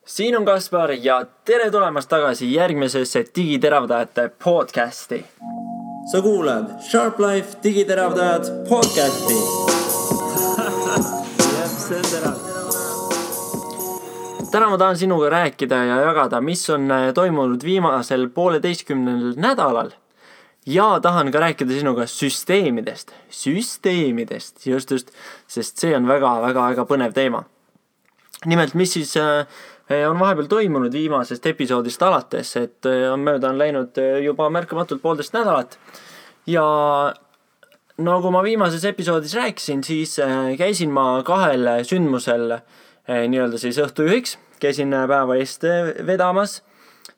Siin on Kaspar ja tere tulemast tagasi järgmisesse digiteravdajate podcasti. Sa kuulad Sharp Life digiteravdajad podcasti. See on terav. Täna ma tahan sinuga rääkida ja jagada, mis on toimunud viimasel 1,5 nädalal. Ja tahan ka rääkida sinuga süsteemidest, just, sest see on väga põnev teema. Nimelt, mis siis on vahepeal toimunud viimasest episoodist alates, et on läinud juba märkamatult 1,5 nädalat. Ja nagu ma viimases episoodis rääkisin, siis käisin ma 2 sündmusel nii-öelda siis õhtujuhiks. Käisin päeva eest vedamas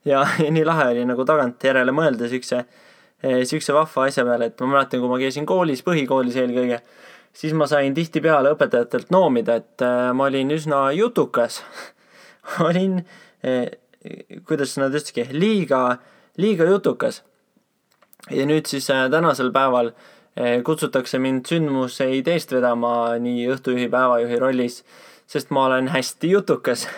ja nii lahe oli nagu tagant järele mõelda siukse vahva asja peale, et ma mäletan, kui ma käisin koolis, põhikoolis eelkõige, siis ma sain tihtipeale õpetajatelt noomida, et ma olin üsna jutukas. Olin, kuidas nad ütlesidki, liiga jutukas. Ja nüüd siis tänasel päeval kutsutakse mind sündmuseid eest vedama nii õhtujuhi päevajuhi rollis, sest ma olen hästi jutukas.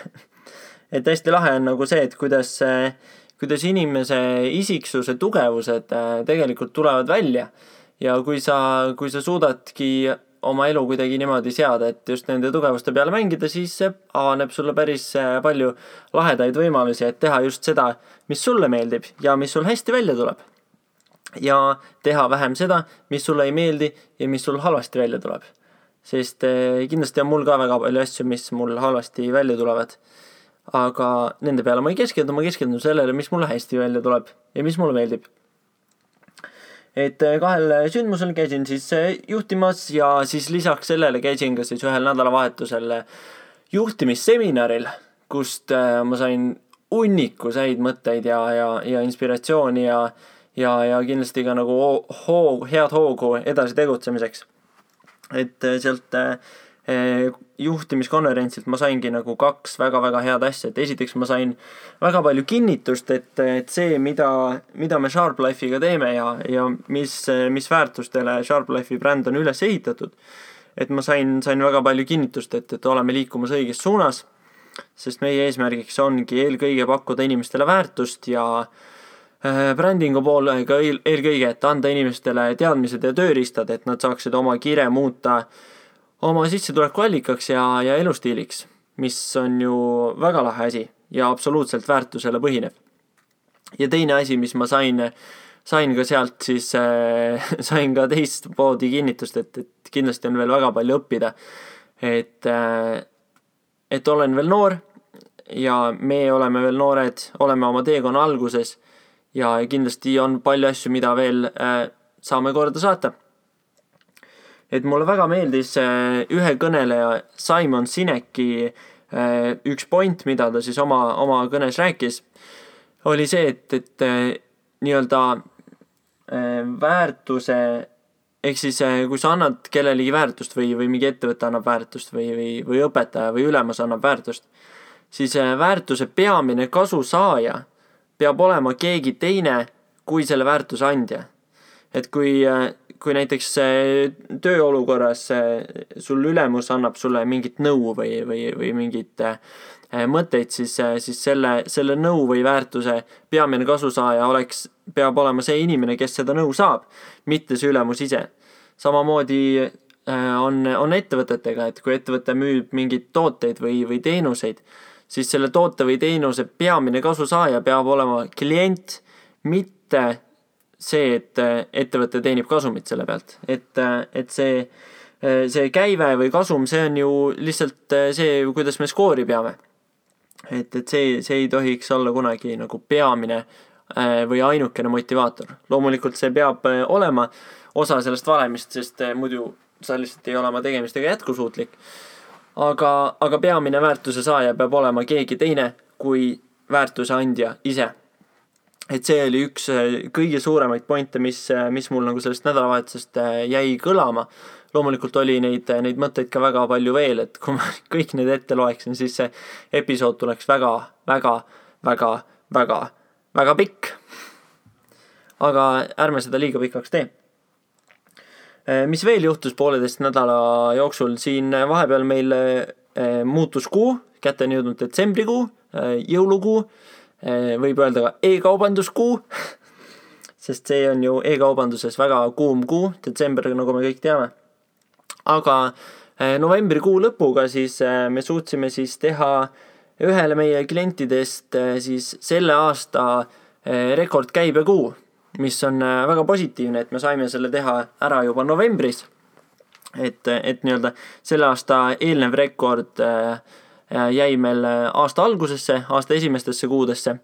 Et hästi lahe on nagu see, et kuidas inimese isiksuse tugevused tegelikult tulevad välja. Ja kui sa suudadki oma elu kuidagi niimoodi seada, et just nende tugevuste peale mängida, siis avaneb sulle päris palju lahedaid võimalusi, et teha just seda, mis sulle meeldib ja mis sul hästi välja tuleb. Ja teha vähem seda, mis sulle ei meeldi ja mis sul halvasti välja tuleb. Sest kindlasti on mul ka väga palju asju, mis mul halvasti välja tulevad. Aga nende peale ma ei keskendu, ma keskendun sellele, mis mulle hästi välja tuleb ja mis mulle meeldib. Et 2 sündmusel käisin siis juhtimas ja siis lisaks sellele käisin ka siis 1 nädalavahetusel juhtimisseminaril, kust ma sain hunniku mõtteid ja inspiratsiooni ja kindlasti ka nagu head hoogu edasi tegutsemiseks. Et sealt juhtimiskonverentsilt ma saingi nagu 2 väga head asja. Et esiteks ma sain väga palju kinnitust, et see, mida me Sharp Life'iga teeme ja mis väärtustele Sharp Life'i bränd on üles ehitatud. Et ma sain väga palju kinnitust, et oleme liikumas õiges suunas, sest meie eesmärgiks ongi eelkõige pakkuda inimestele väärtust ja brändingu poole ka eelkõige, et anda inimestele teadmised ja tööriistad, et nad saaksid oma kire muuta oma sissetuleku allikaks ja elustiiliks, mis on ju väga lahe asi ja absoluutselt väärtusele põhinev. Ja teine asi, mis ma sain ka sealt, siis sain ka teist poodi kinnitust, et kindlasti on veel väga palju õppida. Et olen veel noor ja me oleme veel noored, oleme oma teekonna alguses ja kindlasti on palju asju, mida veel saame korda saata. Et mulle väga meeldis ühe kõneleja Simon Sineki üks point, mida ta siis oma kõnes rääkis, oli see, et nii-öelda väärtuse, ehk siis kui sa annad kellelegi väärtust või mingi ettevõte annab väärtust või õpetaja või ülemus annab väärtust, siis väärtuse peamine kasusaaja peab olema keegi teine kui selle väärtuse andja. Et kui näiteks tööolukorras sul ülemus annab sulle mingit nõu või mingit mõtteid, siis selle nõu või väärtuse peamine kasusaaja peab olema see inimene, kes seda nõu saab, mitte see ülemus ise. Samamoodi on ettevõtetega, et kui ettevõte müüb mingid tooteid või teenuseid, siis selle toote või teenuse peamine kasusaaja peab olema klient, mitte see, et ettevõte teenib kasumit selle pealt. Et see käive või kasum, see on ju lihtsalt see, kuidas me skoori peame. Et see ei tohiks olla kunagi nagu peamine või ainukene motivaator. Loomulikult see peab olema osa sellest valemist, sest muidu sa lihtsalt ei ole oma tegemistega jätkusuutlik. Aga peamine väärtuse saaja peab olema keegi teine kui väärtuse andja ise. Et see oli üks kõige suuremaid pointe, mis mul nagu sellest nädalavahetusest jäi kõlama. Loomulikult oli neid mõtteid ka väga palju veel, et kui ma kõik need ette loeksin, siis see episood tuleks väga pikk. Aga ärme seda liiga pikaks tee. Mis veel juhtus 1,5 nädala jooksul, siin vahepeal meil muutus kuu, kätte on jõudnud detsembrikuu, jõulukuu, võib öelda ka e-kaubanduskuu, sest see on ju e-kaubanduses väga kuum kuu, detsember, nagu me kõik teame. Aga novembrikuu lõpuga siis me suutsime siis teha ühele meie klientidest siis selle aasta rekordkäibekuu, mis on väga positiivne, et me saime selle teha ära juba novembris. Et nii-öelda selle aasta eelnev rekord jäi meil aasta algusesse, aasta esimestesse kuudesse.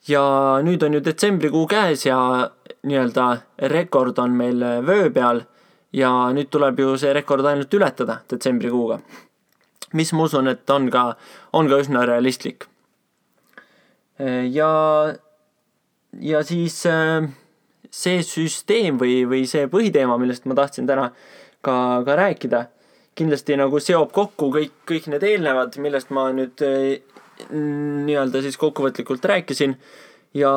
Ja nüüd on ju detsembrikuu käes ja nii-öelda rekord on meil vöö peal ja nüüd tuleb ju see rekord ainult ületada detsembrikuuga, mis ma usun, et on ka üsna realistlik. Ja siis see süsteem või see põhiteema, millest ma tahtsin täna ka rääkida, kindlasti nagu seob kokku kõik need eelnevad, millest ma nüüd nii-öelda siis kokkuvõtlikult rääkisin ja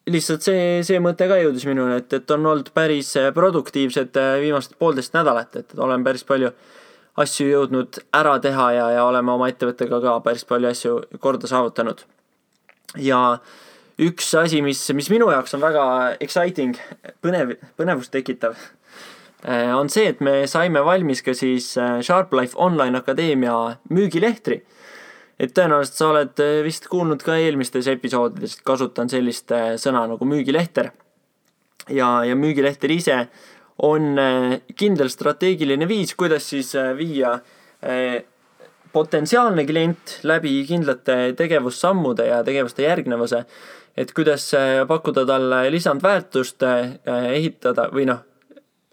lihtsalt see mõte ka jõudis minuni, et on olnud päris produktiivsed viimased 1,5 nädalat, et olen päris palju asju jõudnud ära teha ja oleme oma ettevõttega ka päris palju asju korda saavutanud. Ja üks asi, mis minu jaoks on väga exciting, põnevust tekitav, on see, et me saime valmis ka siis SharpLife Online Akadeemia müügilehtri. Et tõenäoliselt sa oled vist kuulnud ka eelmistes episoodides, kasutan sellist sõna nagu müügilehter. Ja müügilehter ise on kindel strateegiline viis, kuidas siis viia potentsiaalne klient läbi kindlate tegevussammude ja tegevuste järgnevuse, et kuidas pakkuda talle lisandväärtust, ehitada või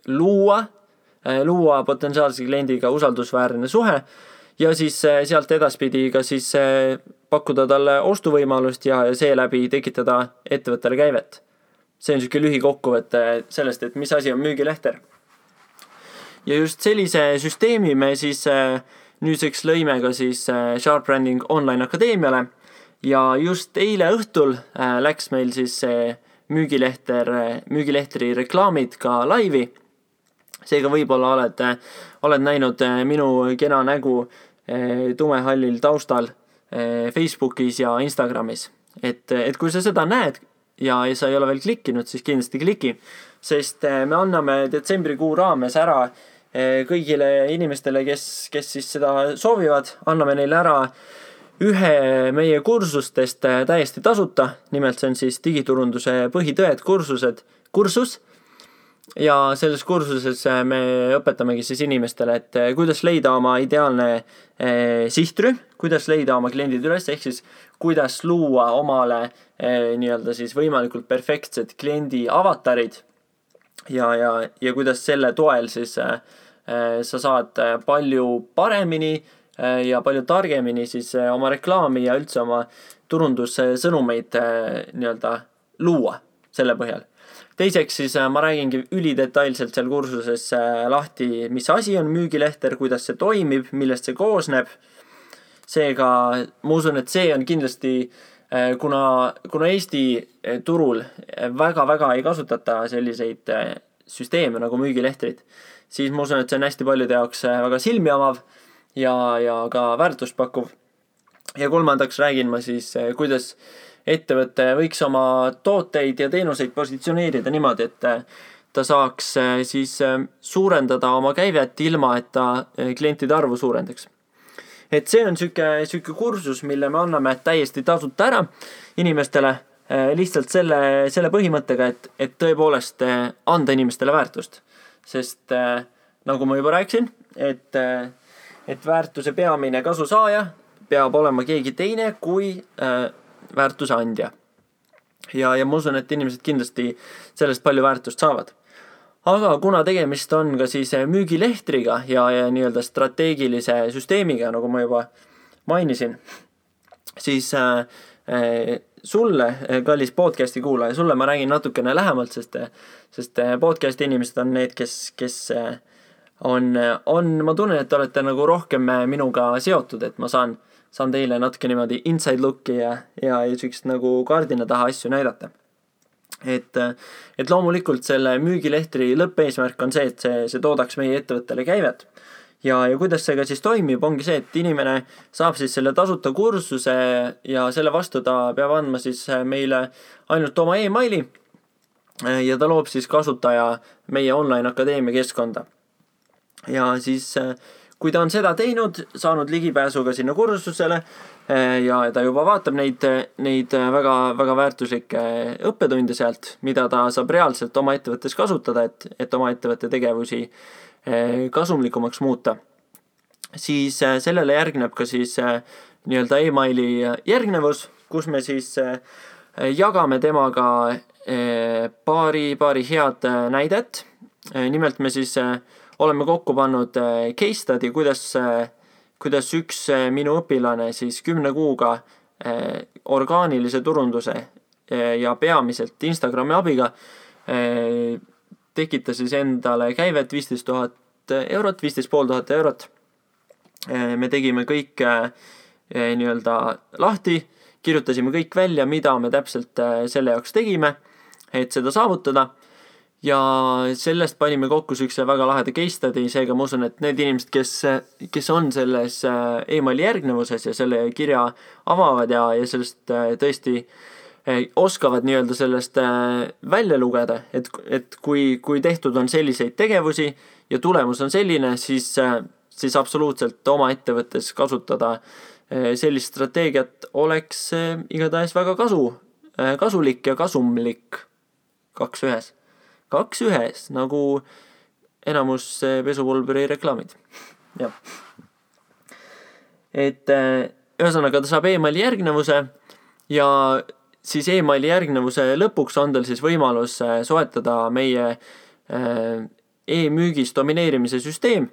luua potentsiaalse kliendiga usaldusväärne suhe ja siis sealt edaspidi ka siis pakkuda talle ostuvõimalust ja seeläbi tekitada ettevõttele käivet. See on selline lühikokkuvõte sellest, et mis asi on müügilehter. Ja just sellise süsteemi me siis nüüdseks lõime ka siis Sharp Branding Online Akadeemiale ja just eile õhtul läks meil siis müügilehtri reklaamid ka laivi. Seega võib-olla oled näinud minu kena nägu tumehallil taustal Facebookis ja Instagramis. Et kui sa seda näed ja sa ei ole veel klikkinud, siis kindlasti kliki, sest me anname detsembrikuu raames ära kõigile inimestele, kes siis seda soovivad, anname neile ära ühe meie kursustest täiesti tasuta, nimelt see on siis digiturunduse põhitõed kursus. Ja selles kursuses me õpetamegi siis inimestele, et kuidas leida oma ideaalne sihtrühm, kuidas leida oma kliendid üles, ehk siis kuidas luua omale nii-öelda siis võimalikult perfektsed kliendi avatarid ja kuidas selle toel siis sa saad palju paremini ja palju targemini siis oma reklaami ja üldse oma turundussõnumeid nii-öelda luua selle põhjal. Teiseks siis ma räägingi ülidetailselt seal kursuses lahti, mis asi on müügilehter, kuidas see toimib, millest see koosneb. Seega ma usun, et see on kindlasti, kuna Eesti turul väga ei kasutata selliseid süsteeme nagu müügilehtrid, siis ma usun, et see on hästi paljude jaoks väga silmi avav ja ka väärtust pakkuv. Ja kolmandaks räägin ma siis, kuidas ettevõte võiks oma tooteid ja teenuseid positsioneerida niimoodi, et ta saaks siis suurendada oma käivet ilma, et ta klientide arvu suurendaks. Et see on selline kursus, mille me anname täiesti tasuta ära inimestele lihtsalt selle põhimõttega, et tõepoolest anda inimestele väärtust. Sest nagu ma juba rääkisin, et väärtuse peamine kasusaaja peab olema keegi teine kui väärtuse andja. Ja ma usun, et inimesed kindlasti sellest palju väärtust saavad. Aga kuna tegemist on ka siis müügilehtriga ja nii-öelda strateegilise süsteemiga, nagu ma juba mainisin, siis sulle, kallis podcasti kuulaja, sulle ma räägin natukene lähemalt, sest podcasti inimesed on need, kes ma tunnen, et olete nagu rohkem minuga seotud, et ma saan teile natuke niimoodi inside looki ja sükst nagu kardina taha asju näidata. Et loomulikult selle müügilehtri lõppeesmärk on see, et see toodaks meie ettevõttele käivet ja kuidas see ka siis toimib, ongi see, et inimene saab siis selle tasuta kursuse ja selle vastu ta peab andma siis meile ainult oma emaili ja ta loob siis kasutaja meie online akadeemia keskkonda. Ja siis kui ta on seda teinud, saanud ligipääsu ka sinna kursusele ja ta juba vaatab neid väga, väga väärtuslikke õppetunde sealt, mida ta saab reaalselt oma ettevõttes kasutada, et oma ettevõtte tegevusi kasumlikumaks muuta, siis sellele järgneb ka siis nii-öelda emaili järgnevus, kus me siis jagame temaga paari head näidet. Nimelt me siis oleme kokku pannud case study, kuidas üks minu õpilane siis 10 kuuga orgaanilise turunduse ja peamiselt Instagrami abiga tekitas siis endale käivet 15 000 eurot, 15 500 eurot. Me tegime kõik nii-öelda lahti, kirjutasime kõik välja, mida me täpselt selle jaoks tegime, et seda saavutada. Ja sellest panime kokku sükse väga laheda case study, seega ma usun, et need inimesed, kes on selles emaili järgnevuses ja selle kirja avavad ja sellest tõesti oskavad nii-öelda sellest välja lugeda, et kui tehtud on selliseid tegevusi ja tulemus on selline, siis absoluutselt oma ettevõttes kasutada sellist strateegiat oleks igatahes väga kasulik ja kasumlik 2 ühes, nagu enamus pesupulbri reklaamid. Ja. Et ühesõnaga ta saab emaili järgnevuse ja siis emaili järgnevuse lõpuks on tal siis võimalus soetada meie e-müügis domineerimise süsteem.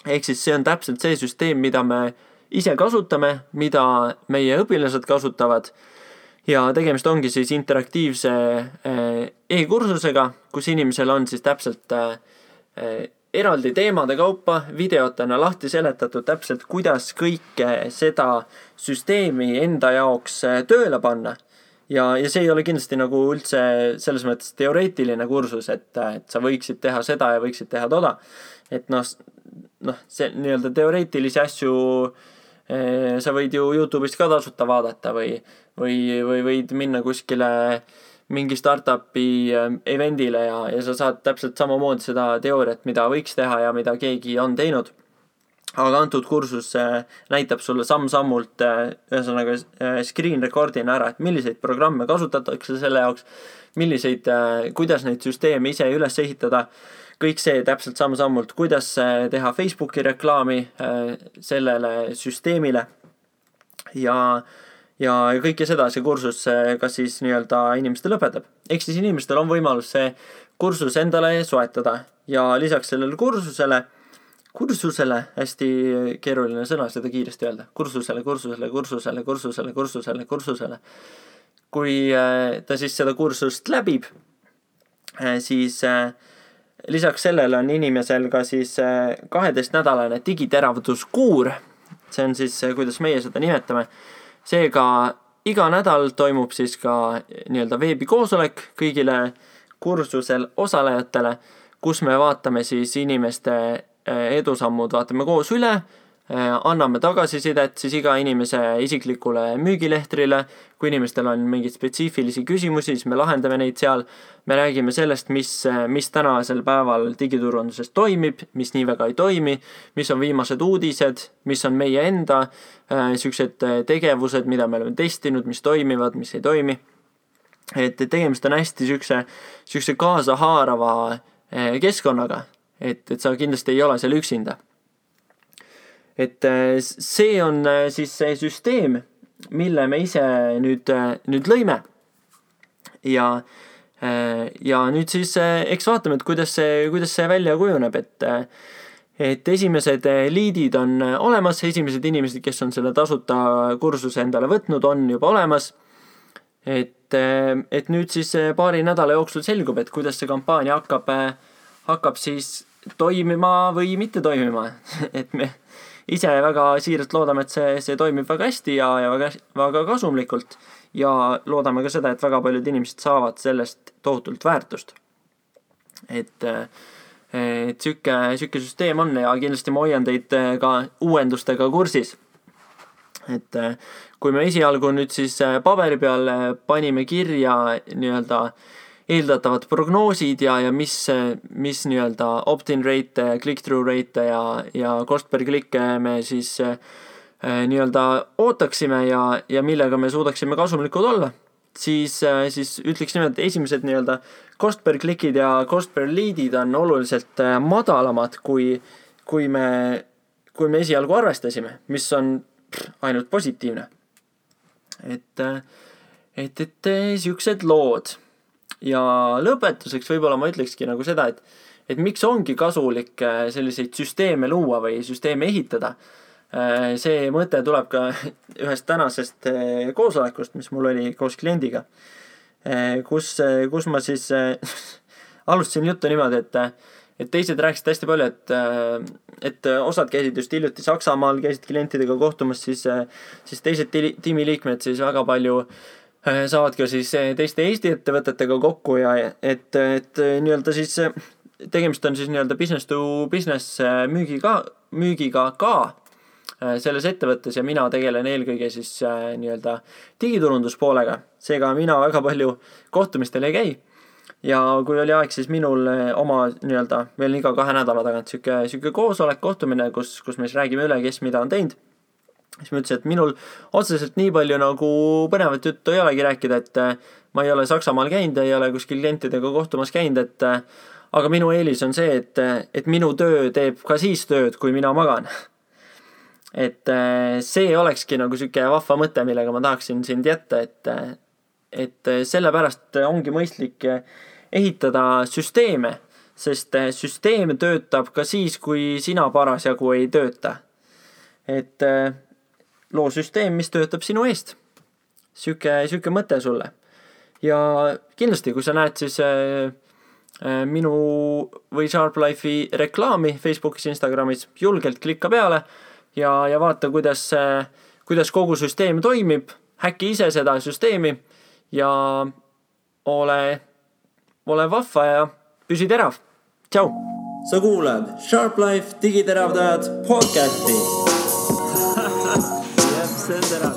Ehk siis see on täpselt see süsteem, mida me ise kasutame, mida meie õpilased kasutavad. Ja tegemist ongi siis interaktiivse e-kursusega, kus inimesel on siis täpselt eraldi teemade kaupa videotena lahti seletatud täpselt, kuidas kõike seda süsteemi enda jaoks tööle panna. Ja see ei ole kindlasti nagu üldse selles mõttes teoreetiline kursus, et sa võiksid teha seda ja võiksid teha toda. Et see nii-öelda teoreetilisi asju sa võid ju YouTube'ist ka tasuta vaadata või võid minna kuskile mingi startupi eventile ja sa saad täpselt samamoodi seda teooriat, mida võiks teha ja mida keegi on teinud. Aga antud kursus näitab sulle samm-sammult ühesõnaga screen recordina ära, et milliseid programme kasutatakse selle jaoks, kuidas neid süsteeme ise üles ehitada. Kõik see täpselt samm-sammult, kuidas teha Facebooki reklaami sellele süsteemile ja kõike seda see kursus ka siis nii-öelda inimestele õpetab. Ehk siis inimestel on võimalus see kursus endale soetada ja lisaks sellele kursusele, hästi keeruline sõna seda kiiresti öelda, kursusele. Kui ta siis seda kursust läbib, siis lisaks sellele on inimesel ka siis 12-nädalane digiteravduskuur. See on siis, kuidas meie seda nimetame. Seega iga nädal toimub siis ka nii-öelda veebikoosolek kõigile kursusel osalejatele, kus me vaatame siis inimeste edusammud, vaatame koos üle, anname tagasisidet siis iga inimese isiklikule müügilehtrile. Kui inimestel on mingeid spetsiifilisi küsimusi, siis me lahendame neid seal. Me räägime sellest, mis tänasel päeval digiturunduses toimib, mis nii väga ei toimi, mis on viimased uudised, mis on meie enda sellised tegevused, mida me oleme testinud, mis toimivad, mis ei toimi. Et tegemist on hästi selline kaasahaarava keskkonnaga, et sa kindlasti ei ole seal üksinda. Et see on siis see süsteem, mille me ise nüüd lõime. Ja nüüd siis eks vaatame, et kuidas see välja kujuneb, et esimesed liidid on olemas, esimesed inimesed, kes on selle tasuta kursuse endale võtnud, on juba olemas. Et nüüd siis paari nädala jooksul selgub, et kuidas see kampaania hakkab siis toimima või mitte toimima. Et me ise väga siiralt loodame, et see toimib väga hästi ja väga kasumlikult ja loodame ka seda, et väga paljud inimesed saavad sellest tohutult väärtust. Et et siuke süsteem on ja kindlasti ma hoian teid ka uuendustega kursis. Et kui me esialgu nüüd siis paberi peal panime kirja nii-öelda eeldatavad prognoosid ja mis nii-öelda opt-in rate, click-through rate ja cost per click me siis nii-öelda ootaksime ja millega me suudaksime kasumlikud olla, siis ütleks nimelt, et esimesed nii-öelda cost per click'id ja cost per lead'id on oluliselt madalamad, kui me esialgu arvestasime, mis on ainult positiivne. Et siuksed lood. Ja lõpetuseks võib-olla ma ütlekski nagu seda, et miks ongi kasulik selliseid süsteeme luua või süsteeme ehitada. See mõte tuleb ka ühest tänasest koosolekust, mis mul oli koos kliendiga, kus ma siis alustasin juttu niimoodi, et teised rääkisid hästi palju, et osad käisid just hiljuti Saksamaal, käisid klientidega kohtumas, siis teised tiimiliikmed siis väga palju saavad ka siis teiste Eesti ettevõtetega kokku ja et nii-öelda siis tegemist on siis nii-öelda business to business müügiga ka selles ettevõttes ja mina tegelen eelkõige siis nii-öelda digiturunduspoolega. Seega mina väga palju kohtumistel ei käi. Ja kui oli aeg, siis minul oma nii-öelda veel iga 2 nädala tagant siuke koosolek kohtumine, kus me siis räägime üle, kes mida on teinud. Siis ma ütlesin, et minul otseselt nii palju nagu põnevat juttu ei olegi rääkida, et ma ei ole Saksamaal käinud, ei ole kuskil klientidega kohtumas käinud, aga minu eelis on see, et minu töö teeb ka siis tööd, kui mina magan. Et see olekski nagu siuke vahva mõte, millega ma tahaksin sind jätta, et sellepärast ongi mõistlik ehitada süsteeme, sest süsteem töötab ka siis, kui sina parasjagu ei tööta. Et loo süsteem, mis töötab sinu eest. Siuke mõte sulle. Ja kindlasti, kui sa näed siis minu või SharpLife'i reklaami Facebookis, Instagramis, julgelt klikka peale ja vaata, kuidas kogu süsteem toimib, häkki ise seda süsteemi ja ole vahva ja püsi terav. Tšau! Sa kuulad SharpLife digiteravdajad podcasti. See on terav.